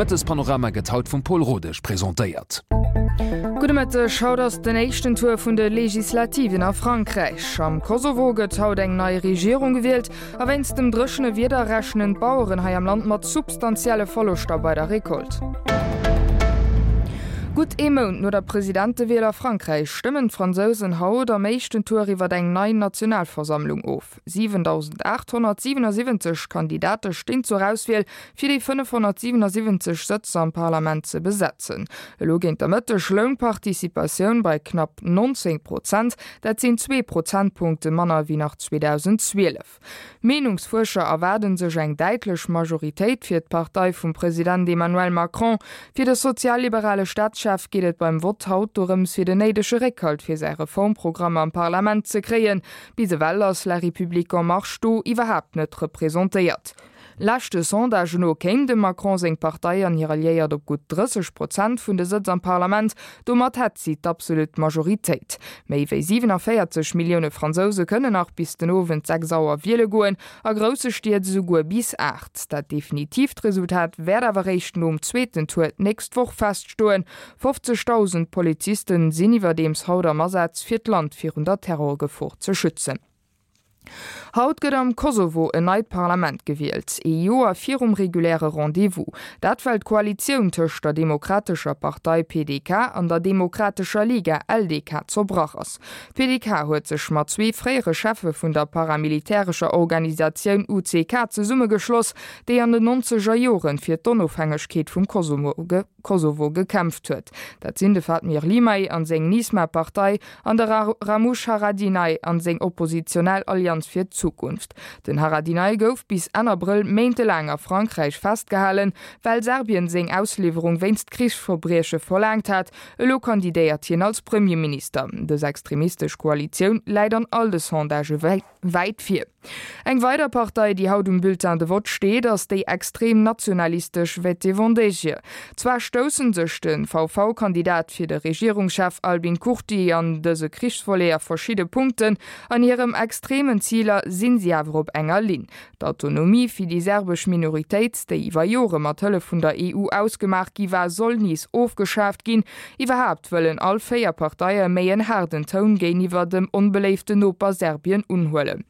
Mëttespanorama gëtt haut vum Paul Rodesch presentéiert. Gudde Mëtteg, Haut ass den éischten Tour vun de Legislativen a Frankräich. Am Kosovo gëtt haut eng nei Regierung gewielt a wéinst dem dréchene Wieder rechnen d'Baueren hei am Land mat substantielle Verloschter bei der Recolte. Gutt ee Mount no der Presidentewiel a Frankräich stëmmen d'Fransousen haut am éischten Tour iwwer eng nei Nationalversammlung of. 7.877 Kandidate stinn zur Auswiel, fir déi 577 Sëtz am Parlament ze besetzen. Elo géint der Mëtteg loung d'Participatioun bei knapp 19 Prozent, dat sinn zwee Prozentpunkte manner wéi nach 2012. Meenungsfuerscher erwaarde sech eng däitlech Majoritéit fir d'Partei vum President Emmanuel Macron. Fir de sozialliberale Staatschef geet et beim Vott haut dorëms, fir den néidege Réckhalt fir säi Reformprogramm am Parlament ze kréien. Bis ewell ass La République En Marche do iwwerhaapt net representéiert. Leschte Sondagen no kéim dem Macron seng Partei an hir Alliéiert op gutt 30 Prozent vun de Sëtz am Parlament. Domat hätt si d'absolut Majoritéit. Méi wéi 47 Millioune Fransouse kënnen nach bis den Owend 6 Auer wiele goen, a grousse Stied esouguer bis 8. Dat definitiivt Resultat wäert awer réischt nom zweeten Tour d'nächst Woch feststoen. 50.000 Polizisten sinn iwwerdeems haut am Asaz, fir d'Land virun der Terrorgefor ze schützen. Haut gëtt am Kosovo en neit Parlament gewielt, ee Joer virum reguläre Rendez-vous. Dat well d'Koalitioun tëscht der Demokratescher Partei, PDK, an der Demokratescher Liga, LDK, zerbrach ass. D'PDK huet sech mat zwee fréiere Cheffe vun der paramilitärescher Organisatioun UCK zesummegeschloss, déi an den nonzeger Joren fir d'Onofhängegkeet vum Kosovo Kosovo gekämpft huet. Dat sinn de Fatmir Limaj an seng Nisma-Partei an de Ramush Haradinaj an seng oppositionell Allianz fir d'Zukunft. Den Haradinaj gouf bis Enn Abrëll méintelaang a Frankräich festgehalen, well Serbien seng Ausliwwerung wéinst Krichsverbrieche verlaangt hat. Elo kandidéiert hien als Premierminister. Dës extremistesch Koalitioun läit an all de Sondagë wäit vir. Eng weider Partei, déi haut um Bulletin de vote steet, ass déi extrem nationalistesch Vetevendegje. Zwar stoussen sech de VV-Kandidat fir de Regierungschef Albin Kurti an dëse Krichsvolet a verschidde Punkten, an hirem extremen Ziler sinn si awer op enger Linn. D'Autonomie fir déi serbesch Minoritéit, déi iwwer Jore mat Hëllef vun der EU ausgemaach gi war, soll nees ofgeschaaft ginn. Iwwerhaapt wëllen all 4 Parteie méi en haarden Toun géiniwwer dem onbeléiften Noper Serbien unhuelen.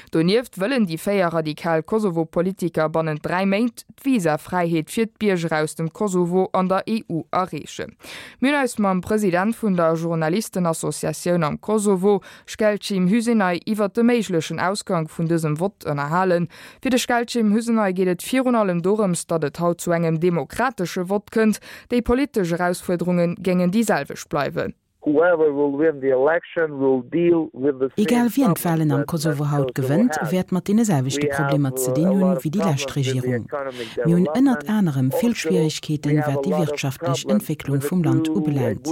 Donieft wëllen déi 4 radikal Kosovo-Politiker bannent 3 Méint d'Visafräiheet fir d'Bierger aus dem Kosovo an der EU erreechen. Mir hunn eis mam President vun der Journalistenassociatioun am Kosovo, Shkelqim Hysenaj, iwwert de méiglechen Ausgank vun dësem Vott ënnerhalen. Fir de Shkelqim Hysenaj geet et virun allem dorëms, datt et haut zu engem demokratesche Vott kënnt. Déi politesch Erausfuerderunge géingen déi selwecht bleiwen. Egal wien d'Walen am Kosovo haut gewënnt, wäert mat deene selwechte Problemer ze dinn hunn, wéi déi lescht Regierung. Mir hunn ënnert anerem vill Schwierigkeeten, wat déi wirtschaftlech Entwécklung vum Land ubelaangt.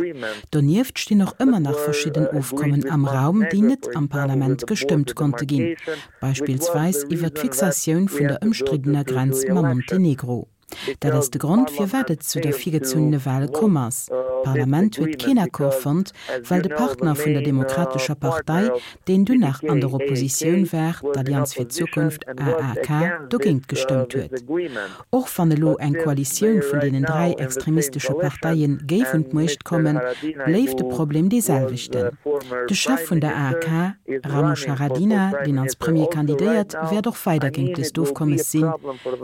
Donieft stinn och ëmmer nach verschidden Ofkommen am Raum, déi net am Parlament gestëmmt konnte ginn, beispillsweis iwwert d'Fixatioun vun der ëmstriddener Grenz mam Montenegro. Dat ass de Grond, firwat et zu der virgezunnene Wal komm ass. D'Parlament huet keen Accord fonnt, well de Partner vun der Demokratescher Partei, deen dunn nach an der Oppositioun war, d'Allianz fir d'Zukunft, AAK, dogéint gestëmmt huet. Och wann elo eng Koalitioun vun deenen 3 extremistesche Parteie géif un d'Muecht kommen, bléift de Problem dee selwechten. De Chef vun der AAK, Ramush Haradinaj, deen als Premier kandidéiert, wäert och weider géint dëst Ofkommes sinn.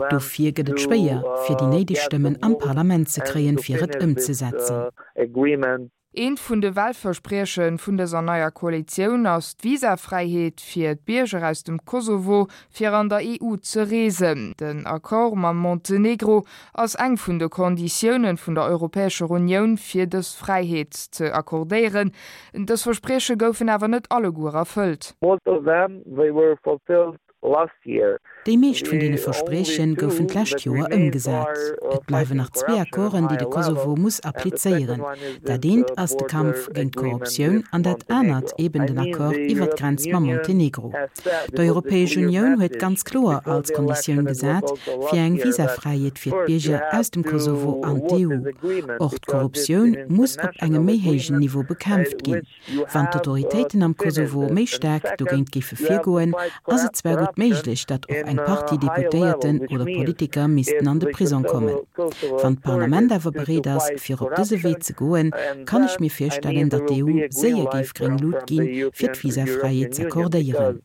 Dofir gëtt et schwéier, fir déi néideg Stëmmen am Parlament ze kréien, fir et ëmzesetzen. Eent vun de Wahlversprieche vun dëser neier Koalitioun ass d'Visafräiheet fir d'Bierger aus dem Kosovo fir an der EU ze reesen. Den Accord mam Montenegro ass eng vun de Konditioune vun der Europäescher Unioun fir dës Fräiheet ze accordéieren. Dës Versprieche goufen awer net alleguer erfëllt. Most of them, they were fulfilled last year. Déi meescht vun deene Versprieche goufen d'lescht Joer ëmgesat. Et bleiwen nach zwee Accorden, déi de Kosovo muss applizéieren. Dat eent ass de Kampf géint d'Korruptioun an dat anert eben den Accord iwwer d'Grenz mam Montenegro. D'Europäesch Unioun huet ganz kloer als Konditioun gesat fir eng Visafräiheet fir d'Bierger aus dem Kosovo an d'EU. Och d'Korruptioun muss op engem méi héijen Niveau bekämpft ginn. Wann d'Autoritéiten am Kosovo méi staark dogéint géife virgoen, ass et zwar gutt. gutt méiglech, datt och eng Partie Deputéierten oder Politiker missten an de Prisong kommen. Wann d'Parlament awer bereet ass, fir op dëse Wee ze goen, kann ech mir virstellen, datt d'EU séier géif gréng Lut ginn, fir d'Visafräiheet z'accordéieren.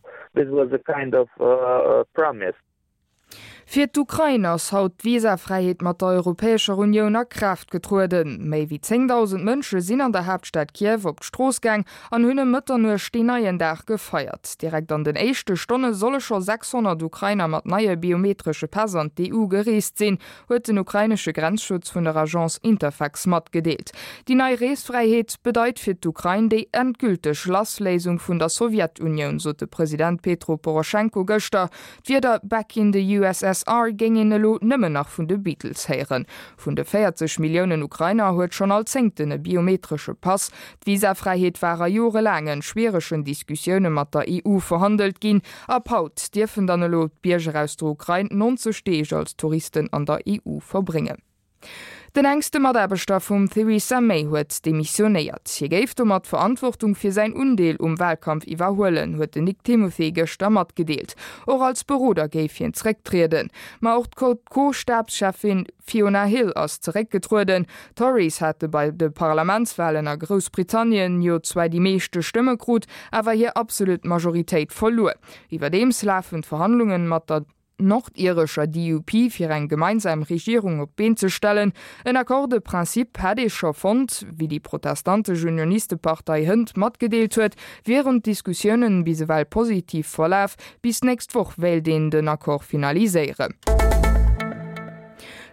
Fir d'Ukrain ass haut d'Visafräiheet mat der Europäescher Unioun a Kraaft getrueden. Méi wéi 10.000 Mënsche sinn an der Haaptstad Kiew op d'Strooss gaang an hunn ëm Mëtternuecht deen neien Dag gefeiert. Direkt an den éischte Stonne solle scho 600 Ukrainer mat neie biometresche Päss an d'EU gereest sinn, huet den ukrainesche Grenzschutz vun der Agence Interfax matgedeelt. Déi nei Reesfräiheet bedeit fir d'Ukrain déi endgülteg Lassléisung vun der Sowjetunioun, sot de President Petro Poroschenko gëschter. D'Wierder Back in the USSR géing een elo nëmmen nach vun de Beatles héieren. Vun de 40 Milliounen Ukrainer huet schonn all Zéngten e biometresche Pass. D'Visafräiheet war a jorelaangen, schwieregen Diskussioune mat der EU verhandelt ginn. Ab haut dierfen dann elo d'Bierger aus der Ukrain 90 Deeg als Touristen an der EU verbréngen. Den enkste Mataarbechter vum Theresa May huet demissionéiert. Hie géif domat d'Verantwortung fir säin Undeel um Walkampf iwwerhuelen, huet den Nick Timothy gëschter matgedeelt. Och als Beroder géif hien zerécktrieden. Ma och d'Co-Stabscheffin Fiona Hill ass zeréckgetrueden. D'Tories hate bei de Parlamentswalen a Groussbritannien jo zwar déi meeschte Stëmme krut, awer hir absolut Majoritéit verluer. Iwwerdeems lafen d'Verhandlungen mat der. nordirescher DUP fir eng gemeinsam Regierung op d'Been ze stellen. En Accord de principe hätt ee scho fonnt. Wéi déi protestantesch Unionistepartei hënt matgedeelt huet, wieren d'Diskussiounen bis ewell positiv verlaf. Bis d'nächst Woch wéilt een den Accord finaliséieren.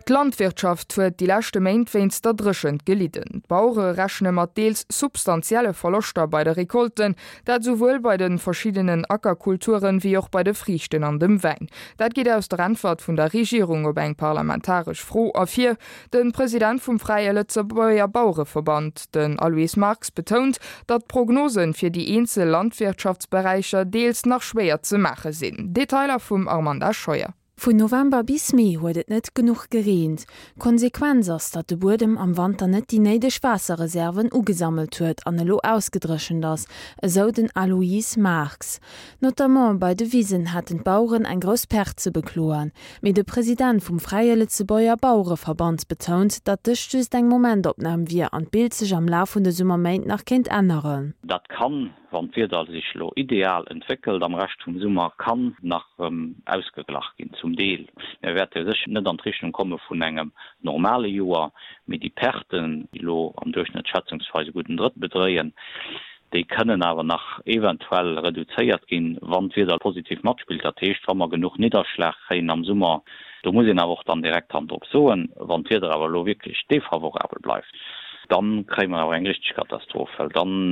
D'Landwirtschaft huet déi leschte Méint wéinst der Dréchent gelidden. D'Bauere rechne mat deels substantielle Verloschter bei de Recolten, dat esouwuel bei de verschiddenen Ackerkulturen, wéi och bei de Friichten an dem Wäin. Dat geet aus der Äntwert vun der Regierung op eng parlamentaresch Fro ervir. De President vum Fräie Lëtzebuerger Bauereverband, den Aloyse Marx, betount, datt d'Prognosen fir déi eenzel Landwirtschaftsberäicher deels nach schwéier ze maache sinn. Detailer vum Armanda Scheuer. Vun November bis Mee huet et net genuch gereent. D'Konsequenz ass, datt de Buedem am Wanter net déi néideg Waasserreserven ugesammelt huet an elo ausgedréchent ass, esou den Aloyse Marx. Notamment bei de Wisen hätten d'Baueren eng grouss Perte ze bekloen. Mee de President vum Fräie Lëtzebuerger Bauereverband betount, datt dëst just eng Momentopnam wier an d'Bild sech am Laf vun de Summerméint nach kéint änneren. Dat kann Wann d'Wieder sech elo ideal entwéckelt am Rescht vum Summer, kann nach erëm ausgeglach ginn, zum Deel. Mir wäerte sécher net an d'Richtung komme vun engem normale Joer, mee déi Perten, déi elo am Duerchschnëtt schätzungsweis e gudden Drëttel bedréien, déi kënnen awer nach eventuell reduzéiert ginn, wann d'Wieder positiv matspillt, dat heescht, wa mer genuch Nidderschlag kréien am Summer. Do muss een awer och dann direkt Hand drop soen, wann d'Wieder awer elo wierklech defavorabel bleift, Dann kréie mer awer eng richteg Katastroph, well dann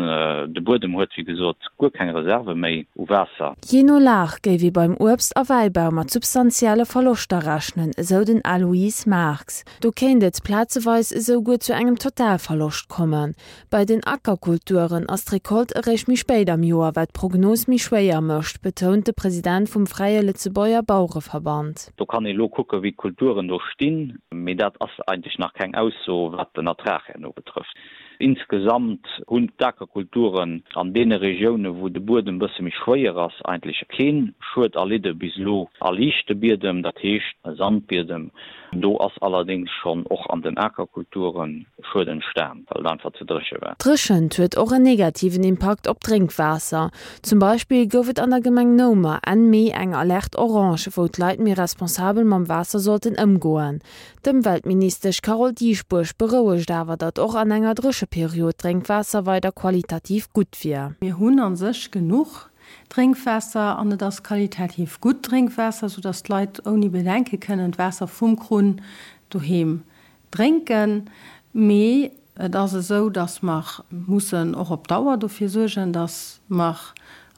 de Buedem huet wéi gesot guer keng Reserve méi u Waasser. Jee no Lag géif ee beim Uebst a Wäibau mat substantielle Verloschter rechnen, esou den Aloyse Marx. Do kéint et plazeweis esou guer zu engem Totalverloscht kommen. Bei den Ackerkulturen ass d'Recolte eréischt méi spéit am Joer, wat d'Prognos méi schwéier mécht, betount de President vum Fräie Lëtzebuerger Bauereverband. Do kann ee lo kucken, wéi d'Kulturen do stinn, mee dat ass eigentlech nach keng Ausso, wat den Ertrag herno betrëfft. Insgesamt hunn d'Akerkulturen an deene Regiounen, wou de Buedem e bësse méi schwéier ass, eigentlech kee Schued erlidde bis elo. A liichte Biedem, dat heescht Sandbiedem, do ass allerdéngs schonn och an den Akerkulture Schued entstan, well et einfach ze dréche war. D'Dréchent huet och en negativen Impakt op d'Drénkwaasser. Zum Beispill gouf et an der Gemeng Noumer Enn Mee eng Alerte orange, wou d'Leit méi responsabel mam Waasser sollten ëmgoen. D'Ëmweltministesch Carole Dieschbourg berouegt awer, datt och an enger Drécheperiod d'Drénkwaasser weider qualitativ gutt wier. Mir hunn a sech genuch Drénkwaasser an et ass qualitativ gutt Drénkwaasser, soudatt d'Leit ouni Bedenke kënnen d'Waasser vum Krunn doheem Drénken, mee et ass esou, datt mer mussen och op Dauer dofir suergen, datt mer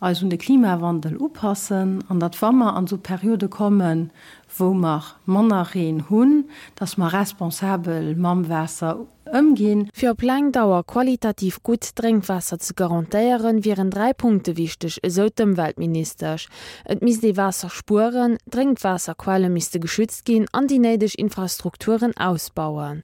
eis un de Klimawandel upassen an datt, wa mer an esou Periode kommen, wou mer manner Reen hunn, datt mer responsabel mam Waasser ëmginn. Fir op laang Dauer qualitativ gutt Drénkwaasser ze garantéieren, wieren 3 Punkte wichteg, esou d'Ëmweltministesch, Et misst ee Waasser spueren, d'Drénkwaasserquelle misste geschützt ginn an déi néideg Infrastrukturen ausbauen.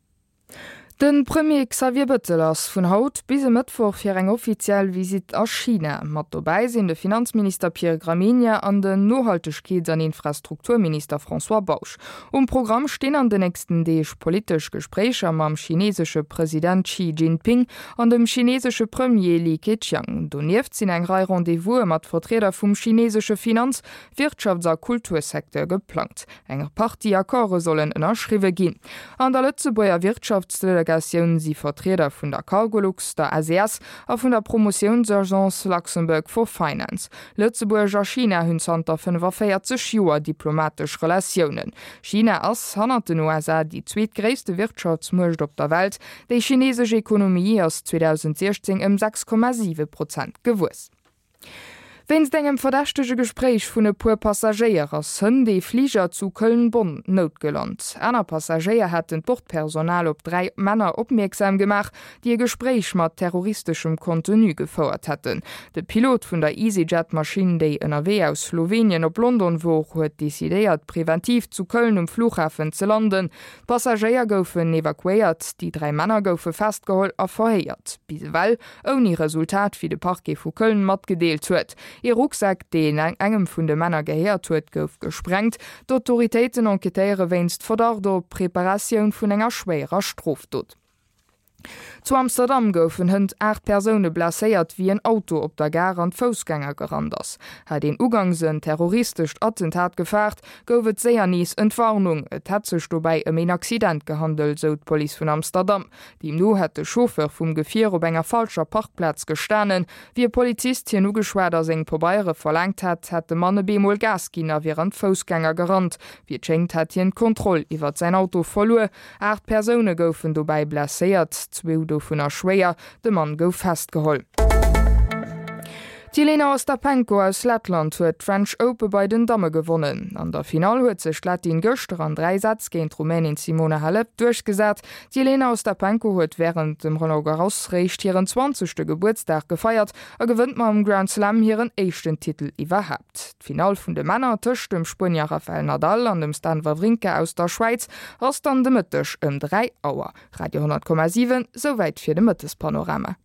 De Premier Xavier Bëttel ass vun haut bis e Mëttwoch fir eng offiziell Visitt a China. Mat dobäi sinn de Finanzminister Pierre Gramegna an den Nohaltegkeets an Infrastrukturminister François Bausch. Um Programm stinn an den nächsten Deeg politesch Gespréicher mam chinesesche President Xi Jinping an dem chinesesche Premier Li Keqiang. Donieft sinn eng Rei Rendez-vouse mat Vertrieder vum chinesesche Finanz-, Wirtschafts a Kultursecteur geplangt. Eng Partie Accorde sollen ënnerschriwwe ginn. An der Lëtzebuerger Wirtschaftsdelegatioun si Vertrieder vun der Cargolux, der SES a vun der Promotiounsagence Luxembourg for Finance. Lëtzebuerg a China hunn zanter 45 Joer diplomatesch Relatiounen. China ass, hannert den USA, déi zweetgréisste Wirtschaftsmuecht op der Welt. Déi chinesesch Ekonomie ass 2016 ëm 6,7 Prozent gewuess. Wéinst engem verdächtege Gespréich vun e puer Passagéier ass hënt ee Fliger zu Köln-Bonn noutgelant. Aner Passagéier hätten d'Bordpersonal op 3 Männer opmierksam gemaach, déi e Gespréich mat terroristeschem Contenu gefouert hätten. De Pilot vun der EasyJet-Maschinn, déi ënnerwee aus Slowenien op London wor, huet decidéiert, preventiv zu Köln um Flughafen ze landen. D'Passagéier goufen evakuéiert, déi 3 Männer goufe festgeholl a verhéiert. Bis ewell Ouni Resultat, wéi de Parquet vu Köln matgedeelt huet. Ee Rucksak, deen engem vun de Männer gehéiert huet, gouf gesprengt. D'Autoritéiten enquêtéiere wéinst Verdacht op Preparatioun vun enger schwéierer Strofdot. Zu Amsterdam goufen hënt 8 Persoune blesséiert, wéi en Auto op der Gare an d'Foussgänger gerannt ass. Hat een ugangs en terroristescht Attentat gefaart, gouf et séier nees Entwarnung. Et hätt sech dobäi ëm een Accident gehandelt, sou d'Police vun Amsterdam. Deemno hätt de Chauffeur vum Gefier op enger falscher Parkplaz gestanen. Wéi e Polizist hien ugeschwat a seng Pabeiere verlaangt hätt, hätt de Mann e bemol Gas ginn a wier an d'Foussgänger gerannt. Wéi et schéngt, hätt hien d'Kontroll iwwert säin Auto verluer. 8 Persoune goufen dobäi blesséiert, zwou dovunner schwéier. De Mann gouf festgeholl. D'Jelena Ostapenko aus Lettland huet d'French Ope bei den Damme gewonnen. An der Finall huet sech d'Lettin gëschter an 3 Sätz géint d'Rumänin Simona Halep duerchgesat. D'Jelena Ostapenko huet wärend dem Roland Garros réischt hiren zwanzegste Gebuertsdag gefeiert a gewënnt mam Grand Slam hiren éischten Titel iwwerhaapt. D'Finall vun de Männer tëscht dem Spuenier Rafael Nadal an dem Stan Wawrinka aus der Schwäiz ass dann de Mëtteg ëm 3 Auer. Radio 10,7, Souwäit fir de Mëttespanorama.